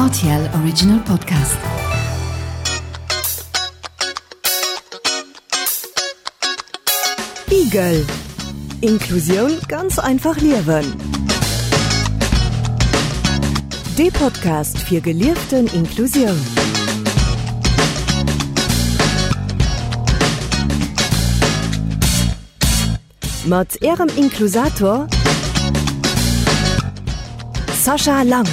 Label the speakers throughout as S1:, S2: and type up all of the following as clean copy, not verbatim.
S1: RTL Original Podcast.
S2: Igel Inklusioun ganz einfach liewen. Dee Podcast fir gelieften Inklusioun. Mat Ärem Inklusator Sascha Lang.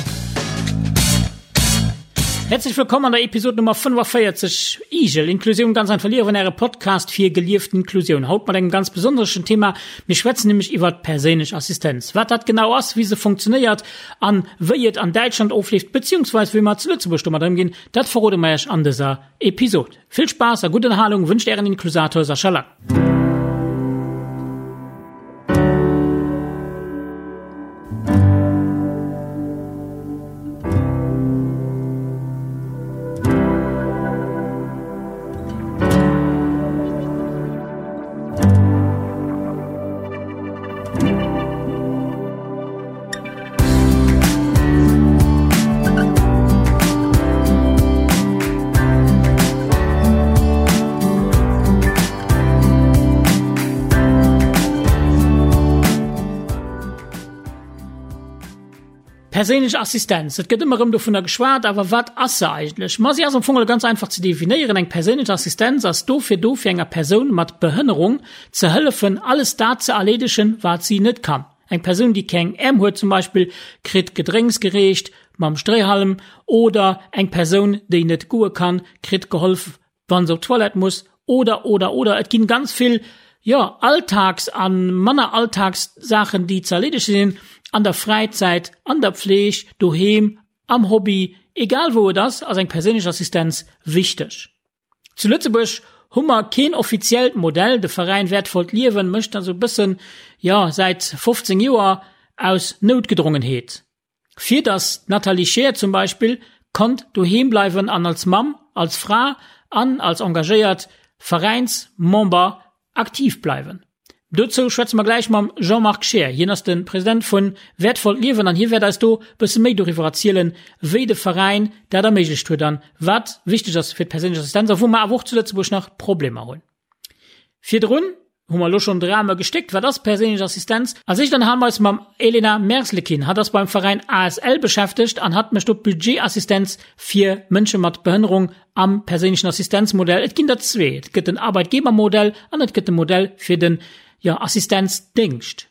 S3: Herzlich willkommen an der Episode Nummer 45 Igel, Inklusioun ganz einfach liewen, äre Podcast fir gelieft Inklusioun. Haut mat engem ganz besonneschen Thema. Mir schwätzen nämlech iwwert perséinlech Assistenz. Wat dat genau ass, wéi se funktionéiert an wéi et an Däitschland ofleeft, beziehungsweise wéi mer zu Lëtzebuerg domat ëmginn, dat verrode mer iech an dëser Episode. Vill Spaass a gutt Ënnerhalung wënscht ären Inklusator Sascha Lang. Perséinlech Assistenz, et gëtt ëmmer erëm dovunner geschwat, awer wat ass se eigentlech? Ma si ass am Fong ganz einfach ze definéieren, Eng perséinlech Assistenz ass dofir do, fir enger Persoun mat Behënnerung ze hëllefen, alles dat ze erleedegen, wat si net kann. Eng Persoun, déi keng Äerm huet zum Beispill, kritt Gedrénks gereecht mam Stréihalm oder eng Persoun, déi net goe kann, kritt geholf, wann se op d'Toilette muss oder, oder, oder. Et ginn ganz vill, jo, Alltags a manner Alltagssaachen, déi ze erleedege sinn an der Fräizäit, an der Pfleg, doheem, am Hobby, egal wou et ass, ass eng perséinlech Assistenz wichteg. Zu Lëtzebuerg hu mer keen offiziellt Modell. De Veräin Wäertvollt Liewen mécht dat esou e bëssen, jo, säit 15 Joer aus Noutgedrongenheet. Fir datt d'Nathalie Scheer zum Beispill konnt doheem bleiwen an als Mamm, als Fra an als engagéiert Veräinsmember aktiv bleiwen. Dozou schwätze mer gläich mam Jean-Marc Scheer. Hien ass de President vu Wäertvollt Liewen an hie wäert eis do bësse méi doriwwer erzielen, wéi de Veräin dat erméiglecht huet an wat wichteg ass fir d'perséinlech Assistenz a wou mer awer och zu Lëtzebuerg nach Problemer hunn. Virdrun hu mer elo schonn de Rahme gestéckt, wat ass perséinlech Assistenz? Als éischt ënnerhale mer eis mam Elena Merzlikin. Hatt ass beim Veräin ASL beschäftegt an hatt mécht do d'Budgetassistenz fir Mënsche mat Behënnerung am perséinlechen Assistenzmodell. Et ginn der zwee, et gëtt den Arbeitgebermodell an et gëtt de Modell fir den, jo, Assistenzdéngscht.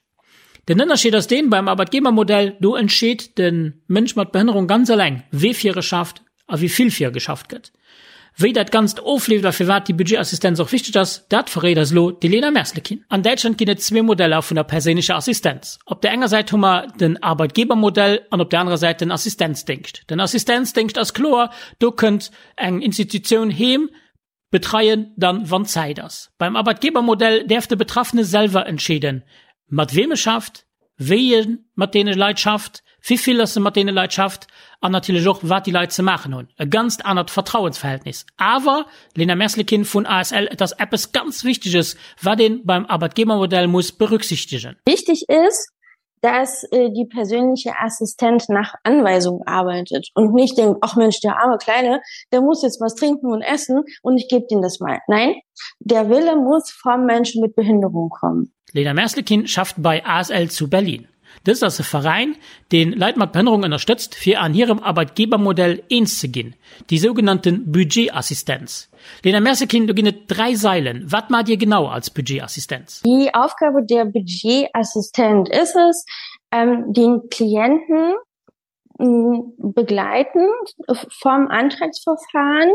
S3: Den Ënnerscheed ass deen, beim Arbeitgebermodell, do entscheet de Mënsch mat Behënnerung ganz eleng, wee fir e schafft a wéi vill fir e geschafft gëtt. Wéi dat Ganzt ofleeft a firwat déi Budgetassistenz och wichteg ass, dat verréit eis elo d'Elena Merzlekin. An Däitschland ginn et zwee Modeller vun der perséinlecher Assistenz. Op der enger Säit hu mer den Arbeitgebermodell an op der anerer Säit den Assistenzdéngscht. Den Assistenzdéngscht ass kloer, do kënnt eng Institutioun heem betreien, dann wann Zäit ass. Beim Arbeitgebermodell däerf de Betraffene selwer entscheeden, mat weem e schafft, wéi e mat deene Leit schafft, wivill dass e mat deene Leit schafft an natierlech och, wat déi Leit ze maachen hunn. E ganzt anert Vertrauensverhältnis. Awer, Lena Merslekin vun ASL, et ass eppes ganz Wichteges, wat ee beim Arbeitgebermodell muss berücksichtegen.
S4: Wichtig ist, dass äh, die persönliche Assistent nach Anweisung arbeitet und nicht denkt, ach Mensch, der arme Kleine, der muss jetzt was trinken und essen und ich gebe ihm das mal. Nein, der Wille muss vom Menschen mit Behinderung kommen.
S3: Lena Merslekin schafft bei ASL zu Berlin. Dëst ass e Veräin, deen Leit mat Behënnerung ënnerstëtzt, fir an hirem Arbeitgebermodell eens ze ginn, déi sougenannte Budgetassistenz. Lena Merslekin, do ginn et 3 Sailen. Wat maacht Dir genau als Budgetassistenz?
S4: Die Aufgabe der Budgetassistent ist es, ähm, den Klienten begleitend vom Antragsverfahren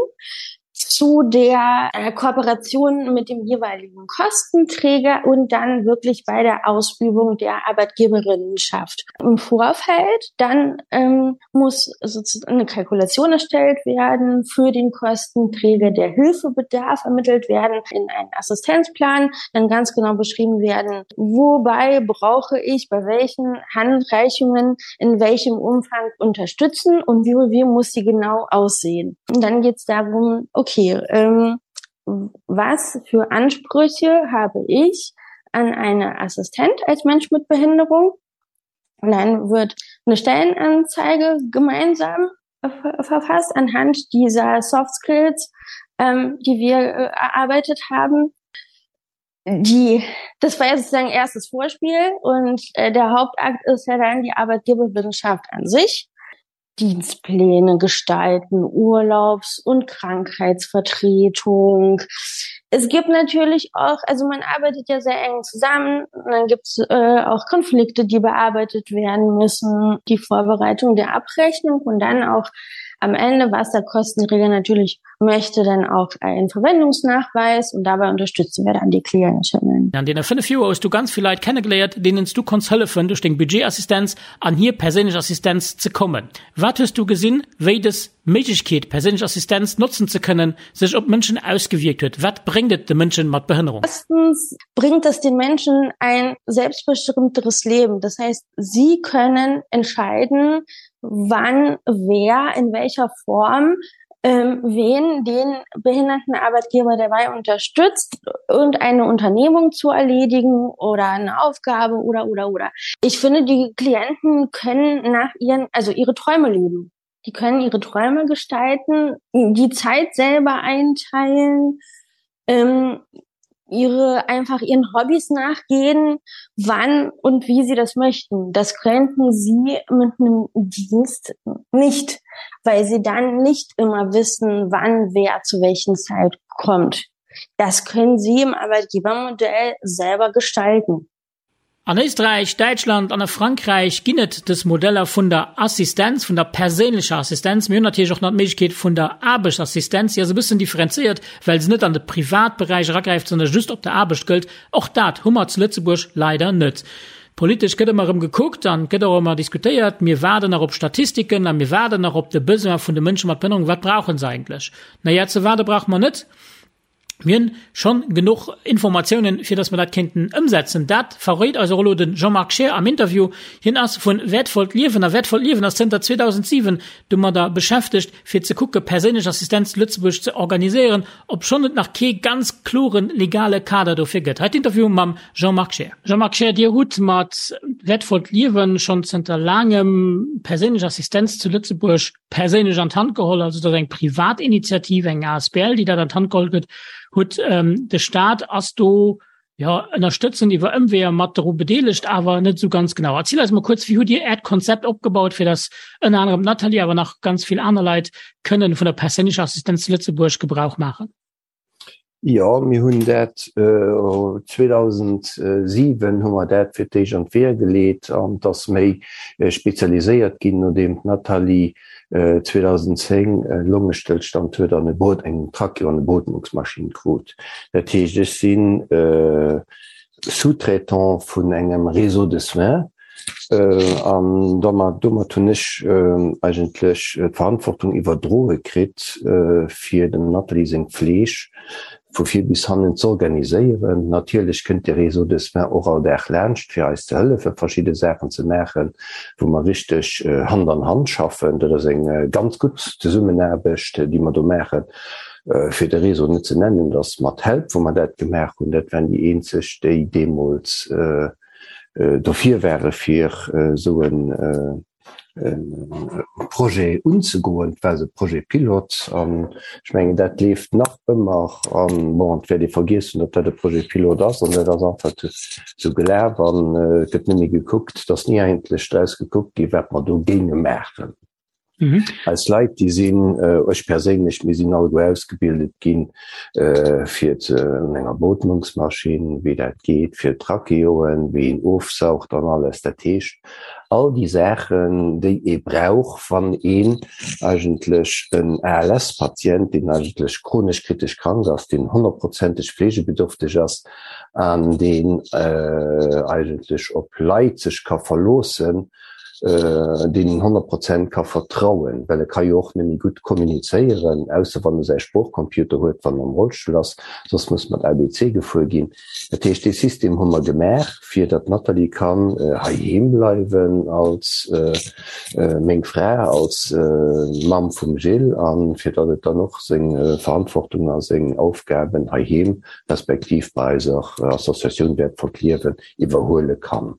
S4: zu der äh, Kooperation mit dem jeweiligen Kostenträger und dann wirklich bei der Ausübung der Arbeitgeberinnenschaft. Im Vorfeld dann ähm, muss sozusagen eine Kalkulation erstellt werden für den Kostenträger, der Hilfebedarf ermittelt werden in einen Assistenzplan, dann ganz genau beschrieben werden, wobei brauche ich bei welchen Handreichungen in welchem Umfang unterstützen und wie, wie muss sie genau aussehen. Und dann geht es darum, okay, ähm, was für Ansprüche habe ich an eine Assistent als Mensch mit Behinderung? Und dann wird eine Stellenanzeige gemeinsam. verfasst anhand dieser Soft Skills, ähm, die wir äh, erarbeitet haben. Die, das war ja sozusagen erstes Vorspiel und äh, der Hauptakt ist ja dann die Arbeitgeberwissenschaft an sich. Dienstpläne gestalten, Urlaubs- und Krankheitsvertretung. Es gibt natürlich auch, also man arbeitet ja sehr eng zusammen, und dann gibt es äh, auch Konflikte, die bearbeitet werden müssen, die Vorbereitung der Abrechnung und dann auch am Ende, was der Kostenträger natürlich möchte, dann auch einen Verwendungsnachweis und dabei unterstützen wir dann die Klientinnen.
S3: An deene 5 Joer hues du ganz vill Leit kennegeléiert, deenen s du konns hëllefen, duerch deng Budgetassistenz an hir perséinlech Assistenz ze kommen. Wat hues du gesinn, wéi dës Méiglechkeet, perséinlech Assistenz notzen ze kënnen, sech op d'Mënschen ausgewierkt huet? Wat bréngt et de Mënschen mat Behënnerung?
S4: Erstens bringt es den Menschen ein selbstbestimmteres Leben. Das heißt, sie können entscheiden, wann, wer, in welcher Form ähm, wen den behinderten Arbeitgeber dabei unterstützt und eine Unternehmung zu erledigen oder eine Aufgabe oder oder oder. Ich finde, die Klienten können nach ihren also ihre Träume leben. Die können ihre Träume gestalten, die Zeit selber einteilen, ähm, ihre einfach ihren Hobbys nachgehen, wann und wie sie das möchten. Das könnten sie mit einem Dienst nicht, weil sie dann nicht immer wissen, wann wer zu welchen Zeit kommt. Das können sie im Arbeitgebermodell selber gestalten.
S3: An Éisträich, Däitschland an a Frankräich ginn et dës Modeller vun der Assistenz, vun der perséinlecher Assistenz. Mir hunn natierlech och nach d'Méiglechkeet vun der Aarbechtsassistenz. Déi ass e bëssen differenzéiert, well se net an de Privatberäich eragräift, sondern just op der Aarbecht gëllt. Och dat hu mer zu Lëtzebuerg leider net. Politesch gëtt ëmmer erëm gekuckt an gëtt och ëmmer diskutéiert. Mir waarden nach op Statistiken a mir waarden nach op de Besoin vun de Mënsche mat Behënnerung. Wat brauche se eigentlech? Na ja, ze waarde brauche mer net. Mir hunn schonn genuch Informatiounen, fir dass mer dat kéinten ëmsetzen. Dat verréit eis och elo de Jean-Marc Scheer am Interview. Hien ass vun Wäertvollt Liewen a Wäertvollt Liewen ass zënter 2007 domadder beschäftegt, fir ze kucke perséinlech Assistenz zu Lëtzebuerg ze organiséieren, obschonn et nach kee ganz klore legale Kader dofir gëtt. Hei d'Interview mam Jean-Marc Scheer. Jean-Marc Scheer, Dir hutt mat Wäertvollt Liewen schonn zënter laangem perséinlech Assistenz zu Lëtzebuerg perséinlech an d'Hand geholl, also dat ass eng Privatinitiativ, eng asbl, déi dat an d'Hand geholl gëtt huet. Ähm, de Staat ass do ja ënnerstëtzend iwwer Ëmweeër mat doru bedeelegt, awer net esou ganz genau. Erziel eis mol kuerz, wéi hutt Dir Äert Konzept opgebaut, fir datt ënner anerem d'Nathalie, awer nach ganz vill aner Leit kënnen vun der perséinlecher Assistenz zu Lëtzebuerg Gebrauch maachen?
S5: Jo, mir hunn dat 2007 hu mer dat fir d'éischt an d'Weeër geleet an et ass méi spezialiséiert ginn, nodeem d'Nathalie 2010 e Longestëllstand huet an e Beot eng Tracheo an e Beotmungsmaschinn krut. Dat heescht, ech si Sous-traitant vun engem Réseau de soins An domat, domat hunn ech eigentlech d'Verantwortung iwwerdroe kritt, fir dem Nathalie seng Fleeg vu vir bis hannen z'organiséieren. Natierlech kënnt de Réseau de soins och all Dag laanscht, fir eis ze hëllefen, verschidde Saachen ze maachen, wou mer richteg Hand an Hand schaffen. Dat ass eng ganz gutt Zesummenaarbecht, déi mer do maachen. Fir de Réseau net ze nennen, dat ass mat Help, wou mer dat gemaach hunn. Dat waren déi eenzeg, déi deemools dofir ware fir esou e Projet unzegoen. Et war esou e Projet pilote an ech mengen dat leeft nach ëmmer an bon, et wäert ee vergiess hunn, datt dat e Projet pilote ass an dat ass einfach esou gelaf an et gëtt net méi gekuckt, et ass ni eigentlech draus gekuckt gi wat mer do géinge maachen. Mhm. Eis Leit, déi sinn, ech perséinlech, mir sinn alleguer ausgebildet ginn, fir ze un enger Beotmungsmaschinn, wéi dat geet, fir Tracheoen, wéi een ofsaugt an alles. Dat heescht, all déi Saachen, déi ee brauch, wann een eigentlech en ALS-Patient, deen eigentlech chronesch kritesch krank ass, deen honnertprozenteg fleegebedürfteg ass an deen eigentlech op Leit sech ka verloossen, deen een 100 Prozent ka vertrauen, well e ka jo och net méi gutt kommunizéieren, ausser wann e säi Sproochcomputer huet, wann en am Rollstull ass, soss muss mat ABC gefuer ginn. Dat heescht, dee System hu mer gemaach, fir datt d'Nathalie kann heiheem bleiwen als meng Fra, als Mamm vum Gilles, a fir datt et dann och seng Verantwortung a seng Aufgaben heiheem respektiv bei eiser Associatioun Wäertvollt Liewen iwwerhuele kann.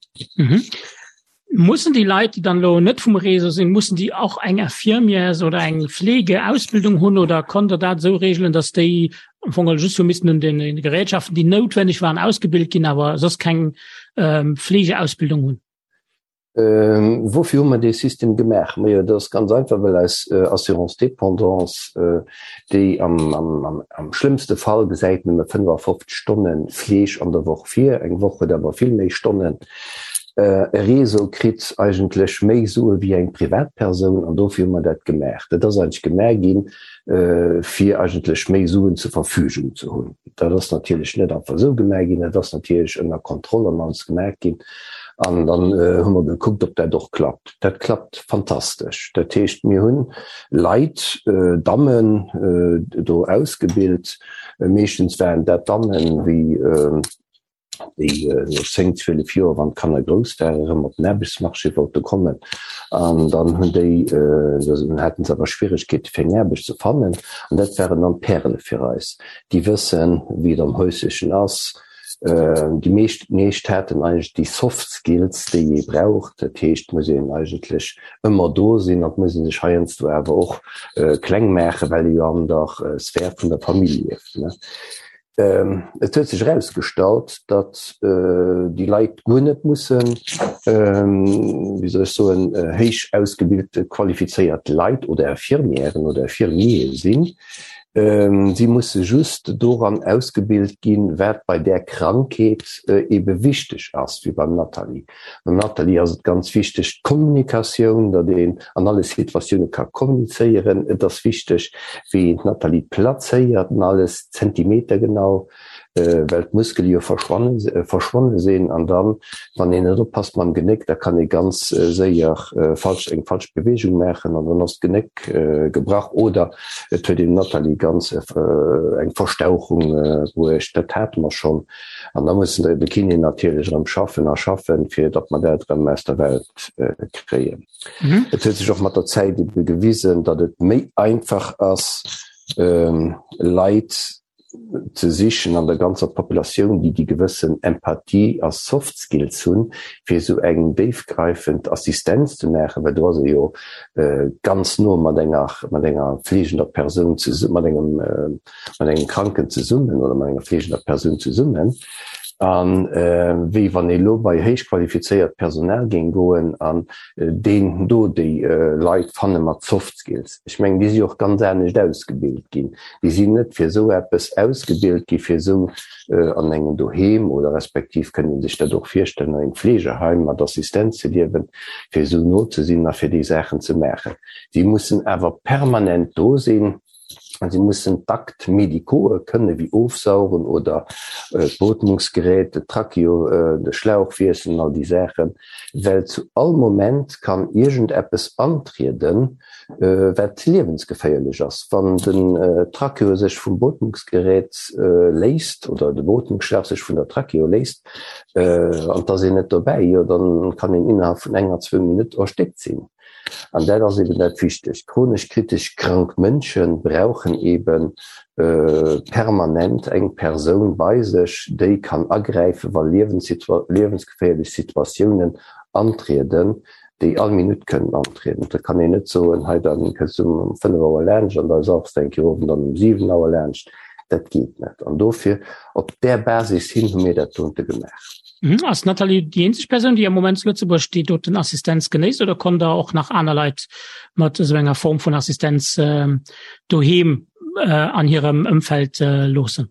S3: Mussen déi Leit, déi dann elo net vum Réseau sinn, mussen déi och eng Infirmières oder eng Fleegeausbildung hunn oder konnt Der dat esou reegelen, datt déi am Fong just hu missten un den Gerätschaften, déi noutwenneg waren, ausgebilt ginn, awer soss keng ähm, Fleegeausbildung hunn?
S5: Ähm, woufir hu mer dee System gemaach? Majo, dat ass ganz einfach, well eis äh, Assurance dépendance, äh, déi am, am, am, am schlëmmste Fall gesäit nëmme 55 Stonne Fleeg an der Woch vir, eng Woch huet awer vill méi Stonnen, E Réseau kritt eigentlech méi Sue wéi eng Privatpersoun an dofir hu mer dat gemaach. Dat ass eigentlech gemaach ginn, fir eigentlech méi Suen zur Verfügung ze hunn. Dat ass natierlech net einfach esou gemaach ginn, dat ass natierlech ënner Kontroll an alles gemaach ginn. An dann hu mer gekuckt, ob dat och klappt. Dat klappt fantastesch. Dat heescht, mir hunn Leit, Dammen do ausgebilt, meeschtens waren dat Dammen, wéi, déi no 10, 12 Joer, wann d'Kanner grouss waren, erëm op den Aarbechtsmarché wollte kommen. An dann hunn déi, dann haten se awer Schwieregkeete fir eng Aarbecht ze fannen. An dat waren dann d'Pärele fir eis, déi wëssen, wéi et am Häuslechen ass. Déi meescht, meescht haten eigentlech déi Soft Skills, déi ee brauch. Dat heescht, et muss een eigentlech ëmmer do sinn an et muss ee sech heiansdo awer och kleng maachen, well ee jo an der Sphär vun der Famill lieft. Et huet sech erausgestallt, datt déi Leit guer net mussen, wéi soll ech soen, héich ausgebilte qualifizéiert Leit oder Infirmièren oder Infirmiere sinn. Si musse just doran ausgebilt ginn, wat bei där Krankheet ebe wichteg ass, wéi beim Nathalie. Beim Nathalie ass et ganz wichteg d'Kommunikatioun, datt een an alle Situatioune ka kommunizéieren. Et ass wichteg, wéi een d'Nathalie plazéiert an alles zentimetergenau, well d'Muskele jo verschwonne sinn. An dann, wann een net oppasst mam Genéck, da kann ee ganz séier falsch, eng falsch Beweegung maachen an dann ass d'Genéck gebrach oder et huet een Nathalie ganz eng Verstauchung bruecht. Dat hate mer schonn. An da mussen de Kiné natierlech erëm schaffen a schaffen, fir datt mer dat erëm aus der Welt kréien. Et huet sech och mat der Zäit ebe gewisen, datt et méi einfach ass, Leit ze sichen an der ganzer Populatioun, déi déi gewëssen Empathie a Soft Skills hunn, fir esou eng déifgreifend Assistenz ze maachen, well do ass ee jo ganz no mat enger, mat enger fleegender Persoun, mat engem mat engem Kranken zesummen oder mat enger fleegender Persoun zesummen, a wéi wann ee lo bei héich qualifizéiert Personal géing goen an deen do déi Leit fanne mat Soft Skills. Ech mengen, déi si och ganz anescht ausgebilt ginn. Déi sinn net fir esou eppes ausgebilt gi fir esou an engem Doheem oder respektiv kënnt ee sech dat och virstellen an engem Fleegeheim mat Assistenz ze liewen, fir esou no ze sinn a fir déi Saachen ze maachen. Si mussen awer permanent do sinn. Si mussen d'Actes médicaux kënne wéi ofsaugen oder d'Beotmungsgerät, de Tracheo, de Schlauch wiesselen, all déi Saachen, well zu all Moment kann iergendeppes antrieden, wat liewensgeféierlech ass. Wann den Tracheo sech vum Beotmungsgerät léisst oder de Beotmungsschlauch sech vun der Tracheo léisst an et ass een net dobäi, jo dann kann een innerhalb vun enger, zwou Minutt erstéckt sinn. An dat ass eben dat Wichtegt. Chronesch kritesch krank Mënsche brauchen ebe permanent eng Persoun bei sech, déi kann agräifen, wa liewensgeféierlech Situatiounen antrieden, déi all Minutt kënnen antrieden. Da kann een net soen, hei da kënns du um 5 Auer laanscht an da sauchs de eng Kéier of an dann um 7 Auer laanscht. Dat geet net. An dofir, op där Basis hin hu mir dat dote gemaach.
S3: Mhm. Ass d'Nathalie déi eenzeg Persoun, déi am Moment zu Lëtzebuerg déi doten Assistenz genéisst oder kommt der och nach aner Leit mat esou enger Form vun Assistenz äh, doheem äh, an hirem Ëmfeld äh, loossen?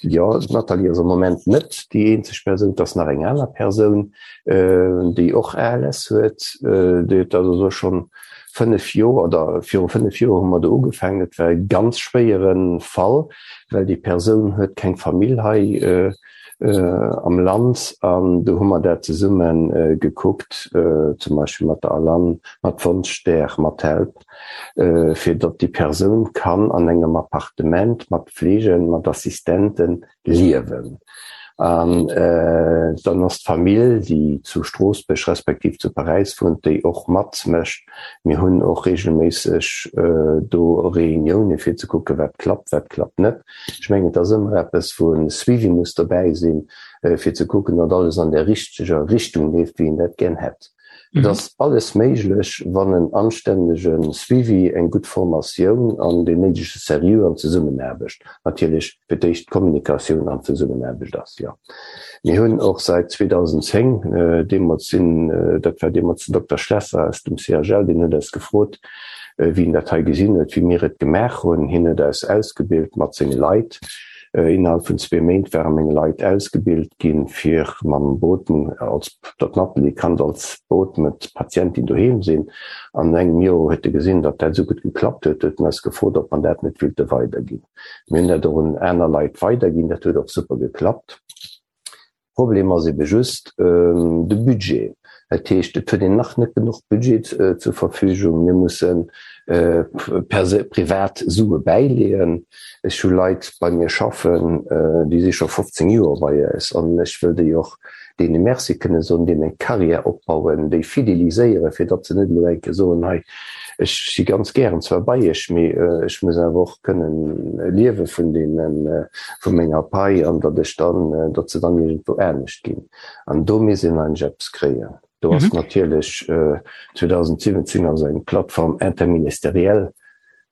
S5: Jo, d'Nathalie ass am Moment net déi eenzeg Persoun, et ass nach eng aner Persoun, äh, déi och ALS huet. Äh, déi huet dat also schonn 5 Joer oder viru 5 Joer hu mer do ugefaangen. Et war e ganz schwéiere Fall, well déi Persoun huet keng Famill hei. Äh, am Land an do hu mer dat zesumme gekuckt, zum Beispill mat der Alan, mat Wonschstär, mat Help, fir datt déi Persoun kann an engem Appartement mat Fleegen, mat Assistente liewen. An dann ass d'Famill, déi zu Stroossbuerg respektiv zu Paräis wunnt, déi och matmécht. Mir hunn och reegelméisseg do Reunioune fir ze kucken, wat klappt, wat klappt net. Ech mengen, et ass ëmmer eppes, wou e Suivi muss dobäi sinn, fir ze kucken, datt alles an där richteger Richtung leeft, wéi een dat gär hätt. Et ass alles méiglech, wann en anstännege Suivi, eng gutt Formatioun an deen néidege Seriö an Zesummenaarbecht, natierlech fir d'éischt d'Kommunikatioun an d'Zesummenaarbecht ass, jo. Mir hunn och säit 2010, deemools sinn, dat war deemools den Dokter Schlesser aus dem CHL, deen huet eis gefrot, wéi en dat hei gesinn huet, wéi mir et gemaach hunn. Hien huet eis ausgebilt mat senge Leit. Innerhalb vun zwee Méint ware meng Leit ausgebilt ginn, fir mam Beootmung, als datt d'Nathalie kann als beootmet Patientin doheem sinn. An engem Joer huet e gesinn, datt dat esou gutt geklappt huet, huet en eis gefrot, ob mer dat net willte weiderginn. Mir hunn dat och un aner Leit weiderginn, dat huet och super geklappt. Problem ass ebe just de Budget. Dat heescht, et huet een nach net genuch Budget zur Verfügung. Mir musse privat Sue bäileeën. Ech hu Leit bei mir schaffen, déi si scho 15 Joer bei eis an ech wëll déi och deene Merci kënne soen, deenen eng Carrière opbauen, déi fideliséieren, fir datt se net elo eng Kéier soen, hei ech si ganz gären zwar bei iech, mee ech muss awer och kënnen liewe vun deenen, vu menger Pai an datt ech dann, datt se dann iergendwou anescht ginn. An do misst een eigentlech eppes kréien. Do ass natierlech 2017 ass eng Plateforme interministérielle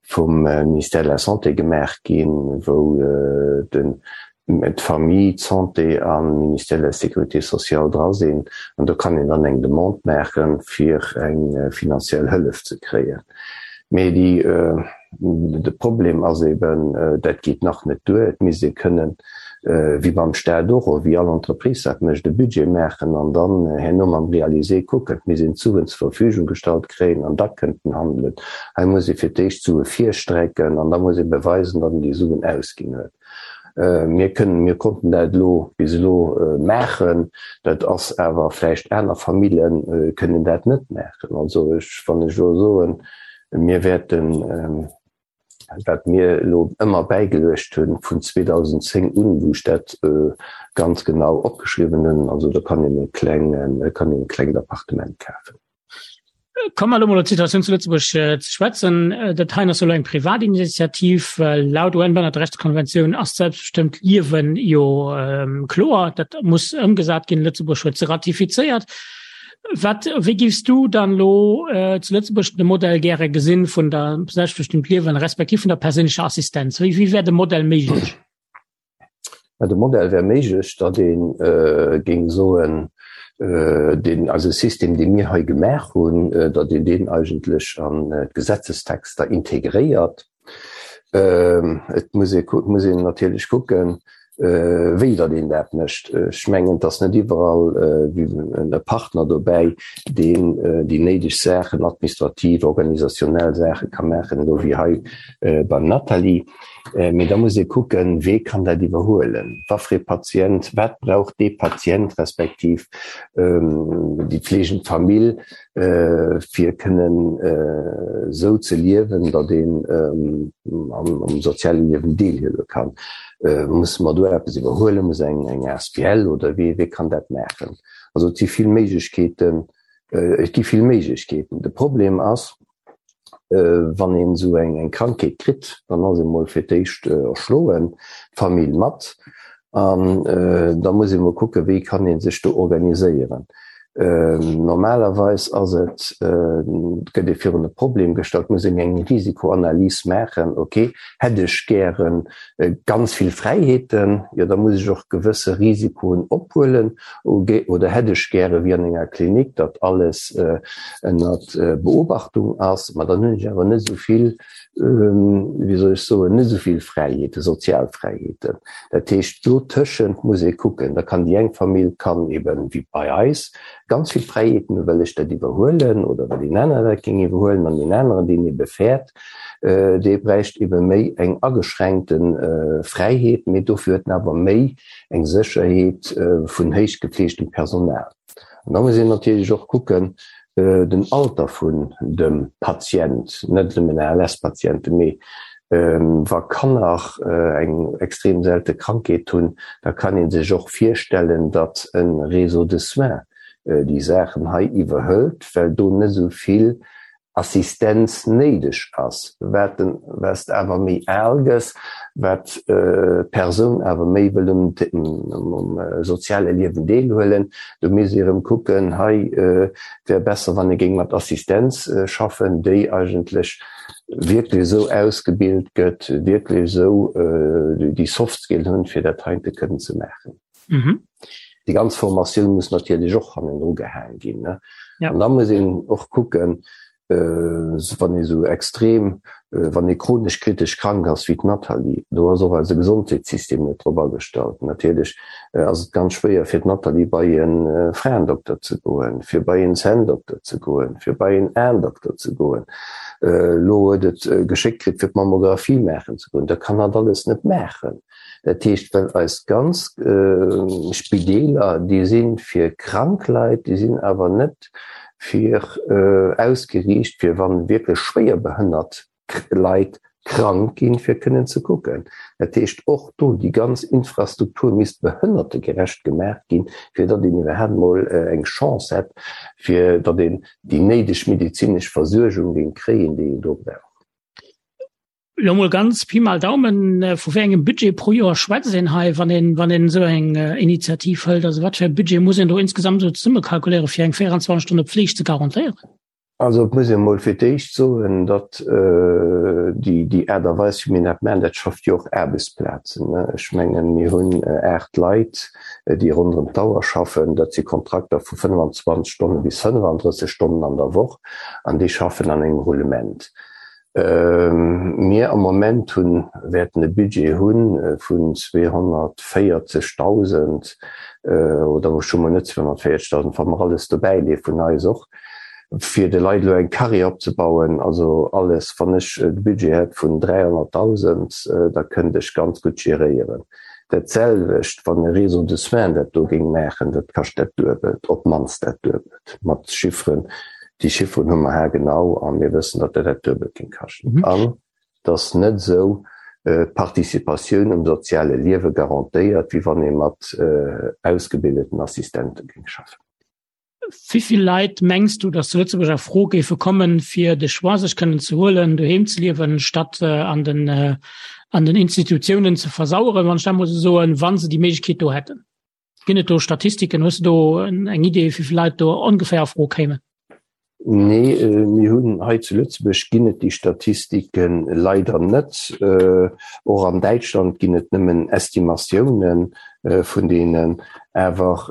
S5: vum Ministère de la Santé gemaach ginn, wou den d'Famille, d'Santé an Ministère de la Sécurité sociale dra sinn. An do kann een dann eng Demande maachen, fir eng finanziell Hëllef ze kréien. Mee déi, de Problem ass eben, dat geet nach net duer. Et misst ee kënnen, wéi beim Staat och, oder wéi all Entreprise dat mécht, e Budget maachen an dann herno mam Réalisé kucken. Et misst een d'Suen zur Verfügung gestallt kréien an da kënnt en handelen. Hei muss ee fir d'éischt d'Sue virstrecken an da muss ee beweisen, datt een déi Suen ausginn huet. Mir kënnen, mir konnten dat elo bis elo maachen, dat ass awer vläicht aner Famille kënnen dat net maachen. Also ech, wann ech elo soen, mir wäerten, wat mir elo ëmmer bäigeluecht hunn vun 2010 un, wou ech dat ganz genau opgeschriwwen hunn, also do kann een e klengen, kann een e klengt Appartement kafen.
S3: Komme mer elo mol op d'Situatioun zu Lëtzebuerg ze schwätzen. Dat heien ass jo elo eng Privatinitiativ. Laut UN-Behannerterechtskonventioun ass d'selbstbestëmmt Liewen jo kloer. Dat muss ëmgesat ginn. Lëtzebuerg huet se ratifizéiert. Wat, wéi giffs du dann elo zu Lëtzebuerg de Modell gäre gesinn vun der selbstbestëmmt Liewen respektiv vun der perséinlecher Assistenz? Wéi, wéi wär de Modell méiglech?
S5: Mä de Modell wär méiglech, datt ee géing soen, deen eise System, dee mir hei gemaach hunn, datt een deen eigentlech an d'Gesetzestexter integréiert. Et muss ee muss een natierlech kucken, wéi datt een dat mécht. Ech mengen, et ass net iwwerall e Partner dobäi, deen déi néideg Saachen, administrativ, organisationnel Saache ka maachen, elo wéi hei beim Nathalie. Mee da muss ee kucken, Wee kann dat iwwerhuelen? Wa fir ee Patient, wat brauch dee Patient respektiv déi pflegend Famill, fir kënnen esou ze liewen, datt een am soziale Liewen deelhuele kann? Musse mer do eppes iwwerhuelen? Muss eng asbl oder wee, wee kann dat maachen? Also et si vill Méiglechkeeten, et gi vill Méiglechkeeten. De Problem ass, Wann een esou eng Krankheet kritt, dann ass ee mol fir d'éischt erschloen, d'Famill mat, an da muss ee mol kucken, wéi kann ee sech do organiséieren. Normalerweis ass et, gëtt ee virun e Problem gestallt, muss een eng Risikoanalys maachen, ok, hätt ech gäre ganz vill Fräiheeten, jo da muss ech och gewësse Risikoen ophuelen, oder hätt ech gäre wéi an enger Klinik, datt alles ënnert Beobachtung ass, ma dann hunn ech awer net esou vill, wéi soll ech soen, net esou vill Fräiheeten, sozial Fräiheeten. Dat heescht, dotëschent muss ee kucken. Da kann déi eng Famill kann eben, wéi bei eis, ganz vill Fräiheeten hunn, well ech dat iwwerhuelen oder well deen aneren dat géing iwwerhuelen an deen aneren, deen ebe fäert, dee bräicht ebe méi eng ageschränkte Fräiheet, mee dofir huet en awer méi eng Sécherheet vun héich gefleegtem Personal. An da muss een natierlech och kucken, den Alter vun dem Patient, net nëmmen ALS-Patienten, mee wa Kanner eng extrem selte Krankheet hunn, da kann ee sech och virstellen, datt e Réseau de soins déi Saachen hei iwwerhëlt, well do net esou vill. Assistenz néideg ass. Wat den, wat s de awer méi al gëss, wat d'Persoun awer méi wëll um, um soziale Liewen deelhuelen, do misst ee erëm kucken, hei wär besser, wann ee géing mat Assistenz schaffen, déi eigentlech wierklech esou ausgebilt gëtt, wierklech esou déi Soft Skills hunn, fir dat heite kënnen ze maachen.
S3: Mhm.
S5: Déi ganz Formatioun muss natierlech och hannendru gehaang ginn. Ne?
S3: Ja.
S5: An da muss een och kucken, äh, wann ee sou extrem, äh, wann ee chronesch kritesch krank ass wéi d'Nathalie, do ass och eise Gesondheetssystem net drop agestallt. Natierlech äh, ass et ganz schwéier fir d'Nathalie bei e äh, Fraendokter ze goen, fir bei en Zänndokter ze goen, fir bei en Aendokter ze goen. Äh, lo huet et äh, geschéckt kritt fir d'Mammographie maachen ze goen. Dat kann hatt alles net maachen. Dat heescht, well eis ganz Spideeler, déi si fir krank Leit, déi sinn awer net fir ausgeriicht, fir wa wierklech schwéier behënnert Leit krank ginn, fir kënnen ze kucken. Dat heescht, och do déi ganz Infrastruktur misst behënnertegerecht gemaach ginn, fir datt een iwwerhaapt emol eng Chance hätt, fir datt een déi néideg medezinesch Versuergung géing kréien, déi een do brauch.
S3: Lo mol ganz Pi mal Daumen, vu wéi engem Budget pro Joer schwätzt een hei, wann een, wann een esou eng Initiativ hëlt? Also wat fir e Budget muss een do insgesamt esou zesummekalkuléieren, fir eng 24 Stonne Pfleg ze garantéieren?
S5: Also et muss ee mol fir d'éischt soen, datt déi, déi Aart a Weis, wéi mir dat maachen, dat schafft jo och Aarbechtsplazen. Ech mengen, mir hunn 8 Leit, déi ronderëm d'Auer schaffen. Dat si Kontrakter vu 25 Stonne bis 35 Stonnen an der Woch an déi schaffen an engem Roulement. Mir am Moment hunn, wäerten e Budget hu vun 240.000, oder ech hu mol net 240.000, wa mer alles dobäi leeë vun eis och, fir de Leit elo eng Carrière opzebauen. Also alles, wann ech e Budget hätt vun 300.000, da kënnt ech ganz gutt geréieren. Dat selwecht, wann e Réseau de soins dat do géing maachen, dat kascht dat Duebelt, op d'mannst dat Duebelt, mat Chifferen, Déi Chifferen hu mer haargenau a mir wëssen, datt dat dat Duebelt géing kaschten. An et ass net esou d'Participatioun um soziale Liewe garantéiert, wéi wann ee mat ausgebildeten Assistente géing schaffen.
S3: Wéi vill Leit mengs du, datt zu Lëtzebuerg a Fro géife kommen, fir de Choix sech kënnen ze huelen, doheem ze liewen, statt an den, an den Institutiounen ze versaueren, wann ech dat mol esou soen, wa se déi Méiglechkeet do hätten? Ginn et do Statistiken? Hues du do eng Idee, wéi vill Leit do ongeféier a Fro kéimen?
S5: Nee, mir hunn hei zu Lëtzebuerg ginn et déi Statistike leider net. Och an Däitschland ginn et nëmmen Estimatiounen vun deenen. Awer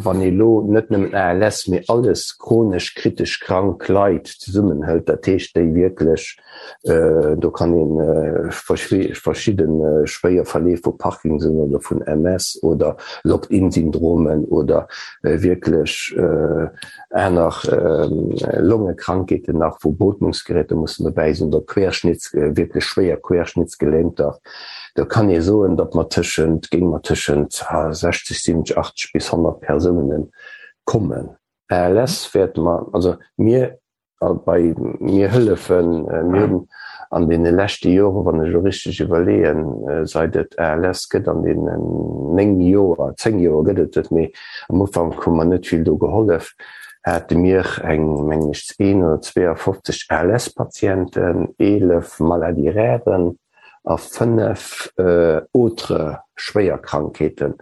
S5: wann ee lo net nëmmen ALS, mee alles chronesch kritesch krank Leit zesummenhëlt, dat heescht déi wierklech Do kann ee verschidde schwéier Verleef vu Parkinson oder vun MS oder Locked-in-Syndromen oder wierklech aner Longekrankheeten nach, wou Beotmungsgeräter mussen dobäi sinn oder Querschnitts, wierklech schwéier Querschnittsgelähmter. Do kann ee soen, datt mer tëschent, géinge mer tëschent 60, 70, 80 bis 100 Persounen kommen. ALS wäerte mer, also mir A bei mir hëllefen, mir hunn an deene leschte Joren, wann ech elo richteg iwwerleeën, seit et ALS gëtt, an deenen 9 Joer, 10 Joer gëtt et et, mee am Ufank hu mer net vill do gehollef, hate mir eng, mengen ech, 1 oder 52 ALS-Patienten, 11 Maladies-rares, a 5 autre schwéier Krankheeten,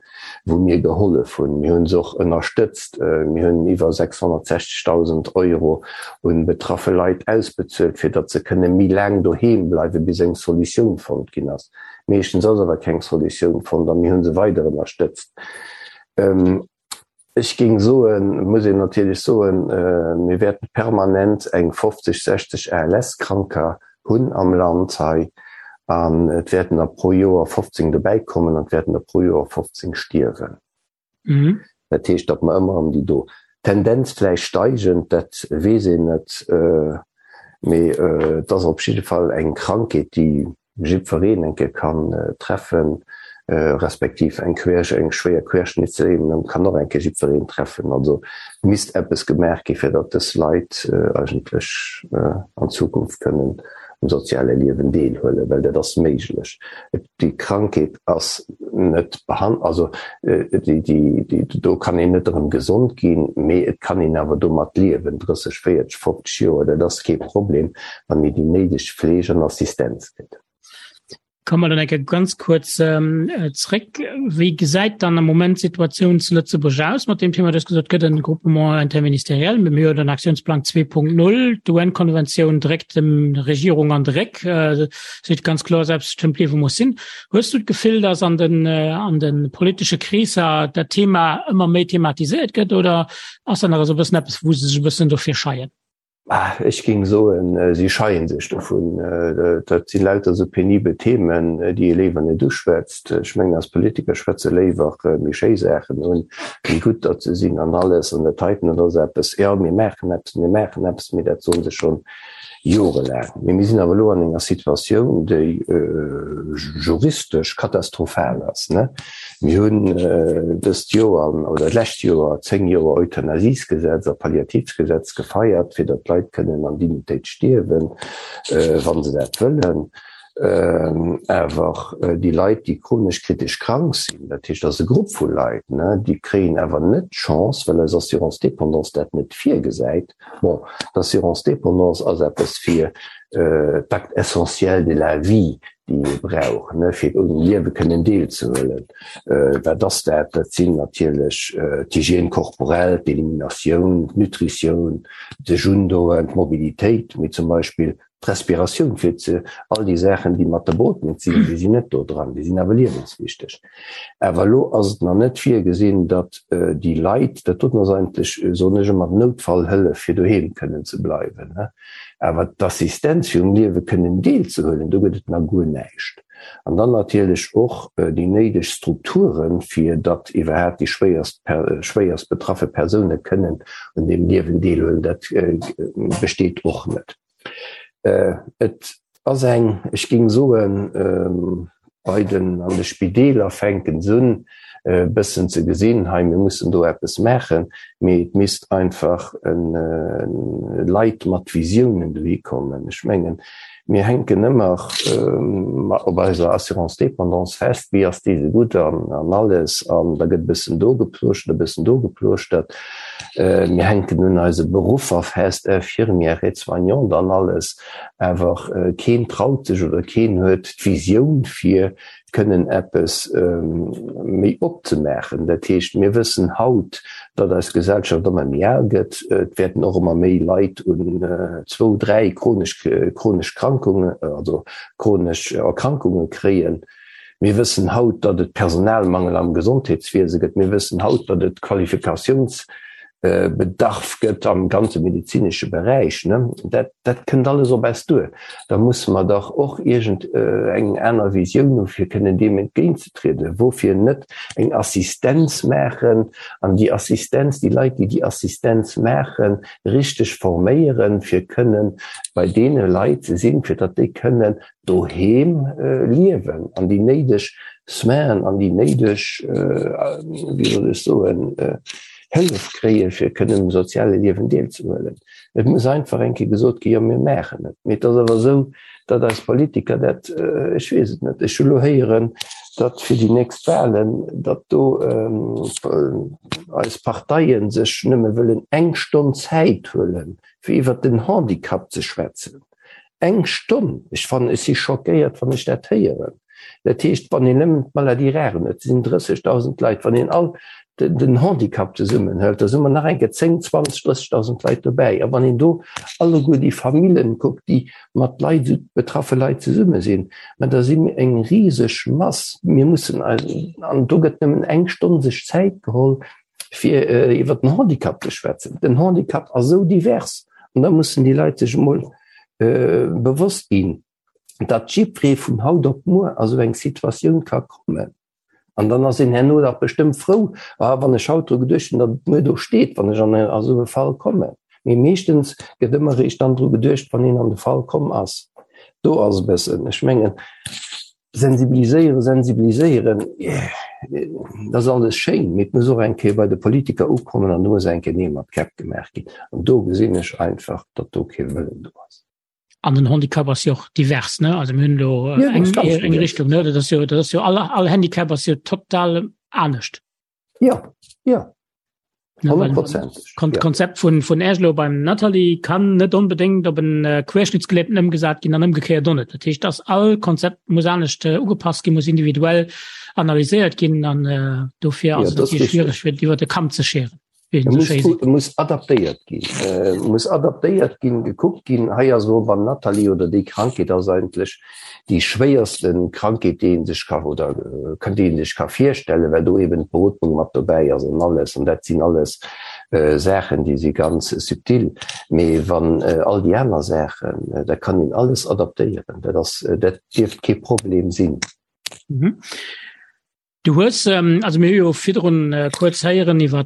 S5: wou mir gehollef hunn. Mir hunn se och ënnerstëtzt. Mir hunn iwwer 660.000 Euro un betraffe Leit ausbezuelt, fir datt se kënne méi laang doheem bleiwen, bis eng Solutioun fonnt ginn ass. Meeschtens ass awer keng Solutioun fonnt a mir hu se weider ënnerstëtzt. Ech géing soen, muss een natierlech soen, mir wäerten permanent eng 50, 60 ALS-Kranker hunn am Land hei an et wäerten der pro Joer 15 dobäikommen an et wäerten der pro Joer 15 stierwen. Dat heescht, datt mer ëmmer erëm déi do, Tendenz vläicht steigend, dat weess een net, mee et ass op jidde Fall eng Krankheet, déi jiddwereen eng Kéier kann treffen, respektiv eng Quersch, eng schwéier Querschnittslähmung kann och eng Kéier jiddwereen treffen. Also et misst eppes gemaach gi fir datt dës Leit eigentlech an Zukunft kënnen. um soziale Liewen deelhuelen, well dat ass méiglech. Déi Krankheet ass net behan-, also déi, déi, déi, do kann een net erëm gesond ginn, mee et kann een awer domat liewen, 30, 40, 50 Joer, dat ass kee Problem, wann een déi néideg Fleeg an Assistenz kritt.
S3: Komme mer dann eng Kéier ganz kuerz zréck. Wéi gesäit dann am Moment d'Situatioun zu Lëtzebuerg aus mat deem Thema? Du hues gesot, et gëtt e Groupement interministériel, mee mir hunn den Aktiounsplang 2.0, d'UN-Konventioun dréckt dem Regierung an de Réck, seet ganz kloer, selbstbestëmmt Liewe muss sinn. Hues du d'Gefill, datt an den, an de politesche Kreesser dat Thema ëmmer méi thematiséiert gëtt oder ass dat nach esou e bëssen eppes, wou se sech e bëssen dofir scheien?
S5: Ech géing soen, si scheie sech dovun. Dat si lauter esou penibel Themen, déi ee léiwer net uschwätzt. Ech mengen, eis Politiker schwätze léiwer méi schéi Saachen un, wéi gutt datt se sinn an alles. An dat heiten, dat ass eppes, jo, mir maachen eppes, mir maachen eppes, mee dat soe se schonn jorelaang. Mee mir sinn awer elo an enger Situatioun, déi juristesch katastrophal ass. Mir hunn dëst Joer oder d'lescht Joer 10 Joer Euthanasiesgesetz a Palliativsgesetz gefeiert, fir datt d'Leit kënnen an Dignitéit stierwen, wa se dat wëllen. Awer déi Leit, déi chronesch kritesch krank sinn, dat heescht, dat ass e Grupp vu Leit, déi kréien awer net d'Chance, well eis Assurance dépendance dat net virgesäit. Bon, d'Assurance dépendance ass eppes fir d'Actes essentiels de la vie, déi ee brauch, fir um Liewe kënnen deelzehuelen. Wat ass dat? Dat sinn natierlech d'Hygiène corporelle, d'Eliminatioun, d'Nutritioun, sech undoen, d'Mobilitéit, mee zum Beispill d'Respiratioun, fir ze, all déi Saachen, déi mat der Beootmung sinn, déi sinn net do dran, déi sinn awer liewenswichteg. Awer elo ass et nach net virgesinn, datt déi Leit, dat doten ass eigentlech, soen ech ëmmer, d'Noutfallhëllef, fir doheem kënnen ze bleiwen. Awer d'Assistenz fir um Liewe kënnen deelzehuelen, do gëtt et nach guer näischt. An dann natierlech och déi néideg Strukturen, fir datt iwwerhaapt déi schwéierst schwéierst betraffe Persoune kënnen un deem Liewen deelhuelen, dat besteet och net. Et ass eng, ech géing soen, bei den, an de Spideeler fänken se un e bëssen ze gesinn, hei mir mussen do eppes maachen, mee et misst einfach Leit mat Visiounen dohi kommen. Ech mengen, mir hänken ëmmer op eiser Assurance dépendance fest, wéi ass déi esou gutt an alles, an da gëtt e bëssen do geplooschtert, e bëssen do geplooschtert. Mir hänken un eise Beruffer fest, Infirmière, Aide-soignante an alles. Awer keen traut sech oder keen huet d'Visioun fir kënnen eppes méi opzemaachen. Dat heescht, mir wëssen haut, datt eis Gesellschaft ëmmer méi al gëtt. Et wäerten och ëmmer méi Leit un zwou, dräi chronesch, chronesch Krankungen, also chronesch Erkrankunge kréien. Mir wëssen haut, datt et Personalmangel am Gesondheetswiese gëtt. Mir wëssen haut, datt et Qualifikatiouns Bedarf gëtt am ganze medezinesche Beräich, ne, dat, dat kënnt alles op eis duer. Da musse mer dach och iergend eng aner Visioun hu fir kënnen deem entgéintzetrieden. Woufir net eng Assistenz maachen an déi Assistenz, déi Leit, déi déi Assistenz maachen, richteg forméieren, fir kënnen bei deene Leit ze sinn, fir datt déi kënnen doheem liewen an déi néideg Soinen an déi néideg, wéi soll ech soen, Hëllef kréien, fir kënnen um soziale Liewen deelzehuelen. Et muss einfach eng Kéier gesot ginn, jo mir maachen et. Mee et ass awer esou, datt eis Politiker dat, ech weess et net, ech hu lo héieren, datt fir déi nächst Wahlen, datt do eis Parteien sech nëmme wëllen eng Stonn Zäit huelen, fir iwwert den Handicap ze schwätzen. Eng Stonn! Ech fannen, ech si schockéiert, wann ech dat héieren. Dat heescht, wann een nëmmen d'Maladies rares huet, sinn 30.000 Leit, wann een all den Handicap zesummen hëlt, da si mer nach eng Kéier 10, 20, 30.000 Leit dobäi. A wann een do alleguer déi Famillen kuckt, déi mat Leit, esou betraffe Leit zesumme sinn, mä da si mir eng riseg Mass. Mir mussen eis, an do gëtt nëmmen eng Stonn sech Zäit geholl, fir iwwer den Handicap ze schwätzen. Den Handicap ass esou divers an da mussen déi Leit sech emol bewosst ginn, datt jiddweree vun haut op muer a sou eng Situatioun ka kommen. An dann ass een herno dach bestëmmt frou, ah wann ech haut dru geduecht hunn, datt et muer do steet, wann ech an esou e Fall kommen. Mee meeschtens gëtt ëmmer eréischt dann dru geduecht, wann een an de Fall komm ass. Do ass e bëssen, ech mengen, Sensibiliséieren, sensibiliséieren, dat ass alles schéin, mee et muss och eng Kéier bei de Politiker ukommen an do muss eng Kéier Neel mat Käpp gemaach ginn. An do gesinn ech einfach, datt do kee Wëllen do ass.
S3: An den Handicap ass jo och divers, ne? Also mir hunn do äh, eng, eng Richtung, ne? Dat ass jo, dat ass jo all, all Handicap ass jo total anescht.
S5: Ja, ja.
S3: Kon ja. Konzept vun vun Äglo beim Nathalie kann net onbedingt op en äh, Querschnittsgelähmten ëmgesat ginn an ëmgekéiert och net. Dat heescht, dass all Konzept muss anescht äh, ugepasst ginn, muss individuell analyséiert ginn an äh, dofir ass ja, et schwierig fir iwwer de Kamm ze scheren.
S5: Muss, muss adaptéiert ginn, äh, muss adaptéiert ginn, gekuckt ginn. Hei ass elo beim Nathalie oder déi Krankheet ass eigentlech déi schwéierste Krankheet, déi ee sech ka oder äh, déi ee sech ka virstellen, well do eben d'Beotmung mat dobäi ass an alles. An dat sinn alles äh, Saachen, déi si ganz subtil. Mee wann äh, all déi aner Saachen, äh, da kann een alles adaptéieren. Dat ass, äh, dat dierft kee Problem sinn.
S3: Mhm. Du hues, also mir hu jo virdrun kuerz héieren iwwer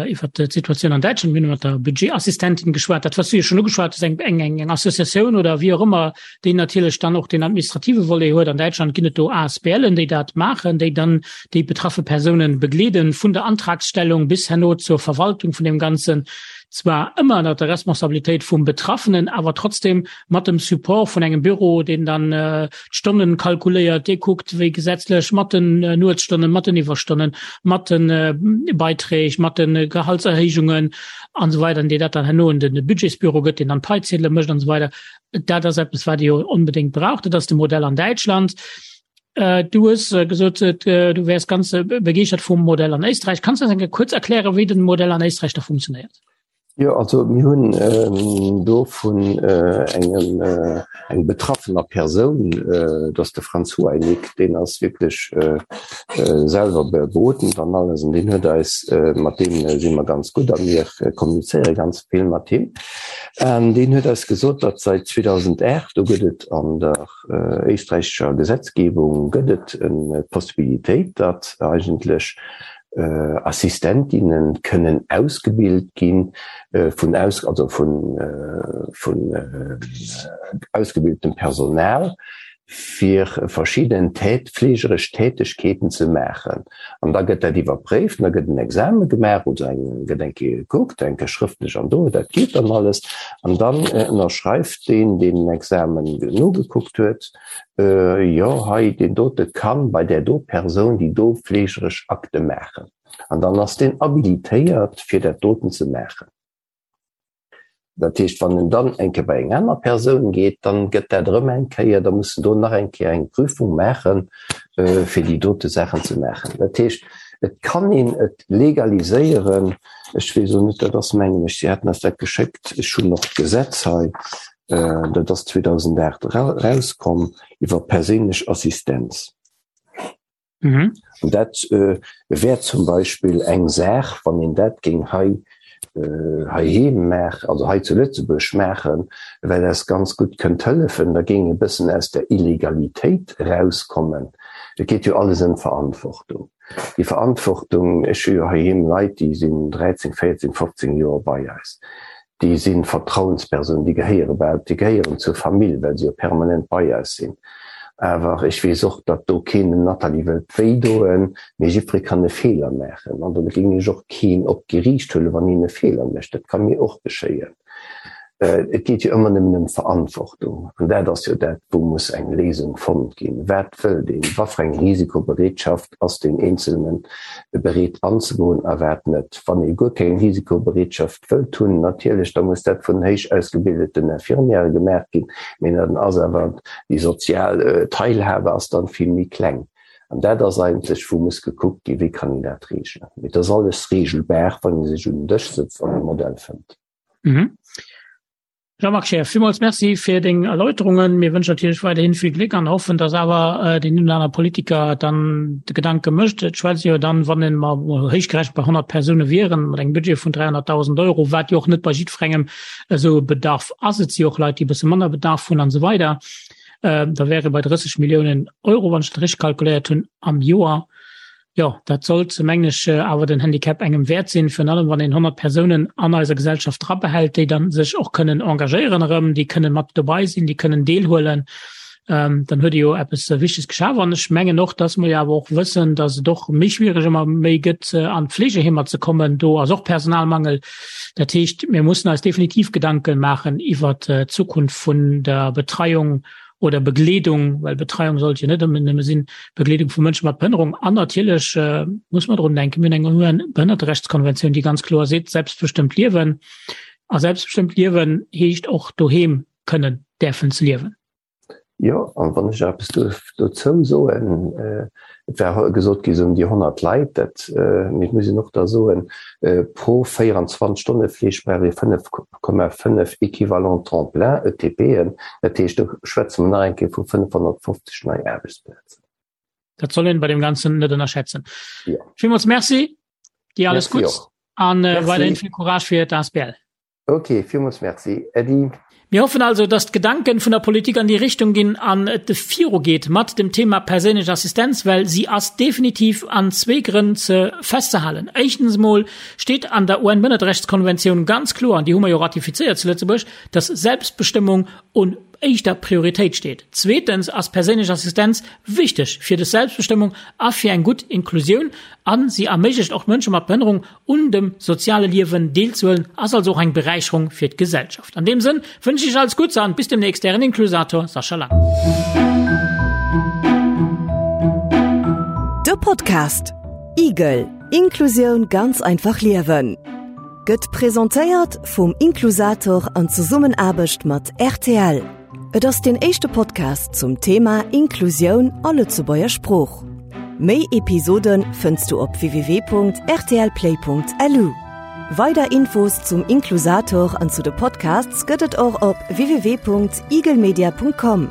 S3: iwwer d'Situatioun an Däitschland, mir hunn mat der Budgetassistentin geschwat, dat wat du jo schonn ugeschwat hues, eng eng eng Associatioun oder wéi och ëmmer, déi natierlech dann och den administrative Volet huet. An Däitschland ginn et do ASBLen, déi dat maachen, déi dann déi betraffe Persounen begleeden, vun der Antragsstellung bis herno zur Verwaltung vun deem Ganzen, zwar ëmmer ënner der Responsabilitéit vum Betraffenen, awer trotzdem mat dem Support vun engem Büro, deen dann d'Stonnen kalkuléiert, dee kuckt, wéi gesetzlech mat den Nuetsstonnen, mat den Iwwerstonnen, mat de Beiträg, mat de Gehaltserhéijungen an esou weider, an dee dat dann herno un de Budgetsbüro gëtt, deen dann d'Paiziedele mécht an esou weider. Dat ass eppes, wat ee jo onbedéngt brauch. Dat ass de Modell an Däitschland. Du hues gesot, du wäers ganz begeeschtert vum Modell an Éisträich. Kanns du eis eng Kéier kuerz erklären, wéi den Modell an Éisträich da funktionéiert?
S5: Jo, also mir hunn do vun engem eng betraffener Persoun, dat ass de Franz Huainig, deen ass wierklech selwer berodend an alles an deen huet eis, mat deem si mer ganz gutt a mir kommunizéiere ganz vill mat him, an deen huet eis gesot, datt säit 2008, do gëtt et an der éisträichescher Gesetzgebung gëtt et d'Possibilitéit, datt eigentlech Assistentinnen kënnen ausgebilt gi vun aus, also vun, vun ausgebiltem Personal, fir verschidden tät, fleegeresch Tätegkeeten ze maachen. An da gëtt dat iwwerpréift an da gëtt en Exame gemaach oder eng, gëtt eng Kéier gekuckt, eng Kéier schrëftlech an do, dat geet dann alles. An dann ënnerschreift deen, deen den Examen nogekuckt huet, Jo, hei deen dote kann bei där do Persoun déi do fleegeresch Akte maachen. An dann ass deen habilitéiert, fir dat doten ze maachen. Dat heescht, wann en dann eng Kéier bei eng aner Persoun geet, dann gëtt dat erëm eng Kéier, da muss en do nach eng Kéier eng Prüfung maachen, fir déi dote Saachen ze maachen. Dat heescht, et kann een et legaliséieren. Ech weess elo net, dat ass mengen ech, si haten eis dat geschéckt, ech hunn och d'Gesetz hei, Dat ass 2008 erauskomm iwwer perséinlech Assistenz. Mhm. An dat äh, wär zum Beispill eng Saach, wann een dat géing hei äh, heiheem maachen, also hei zu Lëtzebuerg maachen, well eis ganz gutt kënnt hëllefen, da géing e bëssen aus der Illegalitéit erauskommen. Et geet jo alles ëm d'Verantwortung. Déi Verantwortung, ech hu jo heiheem Leit, déi sinn 13, 14, 15 Joer bei eis. Déi si Vertrauenspersonen, déi gehéiere bal, déi gehéieren zur Famill, well se jo permanent bei eis sinn. Awer ech weess och, datt do keen dem Nathalie wëllt wéi doen, mee jiddweree kann e Feeler maachen. An do géing ech och keen op d'Geriicht huelen, wann hien e Feeler mécht. Dat ka mir och geschéien. Et geet jo ëmmer nëmmen ëm Verantwortung. An dat ass jo dat, wou muss eng Léisung fonnt ginn. Wat wëllt een? Wat fir eng Risikobereetschaft ass deen Eenzelne bereet anzegoen a wat net? Wann ee guer keng Risikobereetschaft wëllt hunn, natierlech, da muss dat vun héich ausgebildeten Infirmièrë gemaach ginn, mee dann ass awer déi sozial Teilhabe ass dann vill méi kleng. An dat ass eigentlech, wou muss gekuckt ginn, wéi kann een dat reegelen. Mee et ass alles reegelbar, wann ee sech un den Dësch sëtzt an e Modell fënnt.
S3: Mhm. Jean-Marc Scheer, villmools Merci fir deng Erläuterungen. Mir wënschen natierlech weiderhin vill Gléck an hoffen, dass awer äh, den een oder aner Politiker dann de Gedanke mécht. Et schwätzt jo dann, wann en mer héichgerechent bei 100 Persoune wieren, mat engem Budget vun 300.000 Euro, wat jo och net bei jiddwerengem esou e Bedarf ass. Et si jo och Leit, déi e bësse manner Bedarf hunn an esou weider. Äh, da wäre bei 30 Milliounen Euro, wann ech dat richteg kalkuléiert hunn, am Joer. Jo, dat sollt, mengen ech, awer den Handicap engem wäert sinn, virun allem wann een 100 Persounen an eiser Gesellschaft drabehält, déi dann sech och kënnen engagéieren erëm, déi kënnen mat dobei sinn, déi kënnen deelhuelen. Ähm, dann huet Dir jo eppes Wichteges geschaf. An ech mengen och, dass mer jo awer och wëssen, dass et och méi schwiereg ëmmer méi gëtt, an d'Fleegeheemer ze kommen. Do ass och Personalmangel. Dat heescht, mir mussen eis definitiv Gedanken maachen iwwert d'Zukunft vun der Betreiung oder Begleedung, well Betreiung sollt jo net ëmmer nëmme sinn, Begleedung vu Mënsche mat Behënnerung. An natierlech muss mer drun denken, mir hunn eng UN-Behënnerterechtskonventioun, déi ganz kloer seet, selbstbestëmmt liewen. A selbstbestëmmt liewen heescht och doheem kënnen däerfen ze liewen.
S5: Jo, an wann ech nach eppes duerf dozou soen, et war gesot gi sou ëm déi 100 Leit, dat, mee et muss een och da soen, pro 24 Stonne Fleeg brauch ee 5,5 Équivalent temps plein, ETPen, dat heescht do schwätze mer nach eng Kéier vu 550 nei Aarbechtsplazen.
S3: Dat soll een bei deem Ganzen net ënnerschätzen. Jo. Villmools Merci, dir alles Gutts an weiderhin vill Courage fir d'ASBL.
S5: Ok, villmools Merci, Äddi.
S3: Mir hoffen also, dass d'Gedanken vun der Politik an déi Richtung ginn an et viru geet mat dem Thema perséinlech Assistenz, well si ass definitiv an zwee Grënn ze festzehalen. Éischtens emol steet an der UN-Bënnerterechtskonventioun ganz kloer, an déi hu mer jo ratifizéiert zu Lëtzebuerg, dass Selbstbestëmmung un éischter Prioritéit steet. Zweetens ass perséinlech Assistenz wichteg fir des Selbstbestëmmung a fir eng gutt Inklusioun a si erméiglecht och Mënsche mat Behënnerung un dem soziale Liewen deelzehuelen, ass also och eng Beräicherung fir d'Gesellschaft. An deem Sënn wënschen ech iech alles Gutts an bis demnächst, ären Inklusator Sascha Lang.
S2: De Podcast Igel, Inklusioun ganz einfach liewen gëtt presentéiert vum Inklusator an Zesummenaarbecht mat rtl. Et ass deen éischte Podcast zum Thema Inklusioun a Lëtzebuerger Sprooch. Méi Episode fënns du op www.rtlplay.lu. Weider Infos zum Inklusator an zu de Podcasts gëtt et och op www.eaglemedia.com.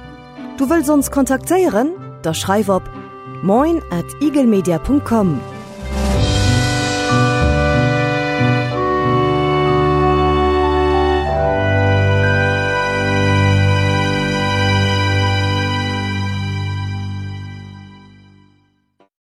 S2: Du wëlls ons kontaktéieren? Da schreif op moin at eaglemedia.com.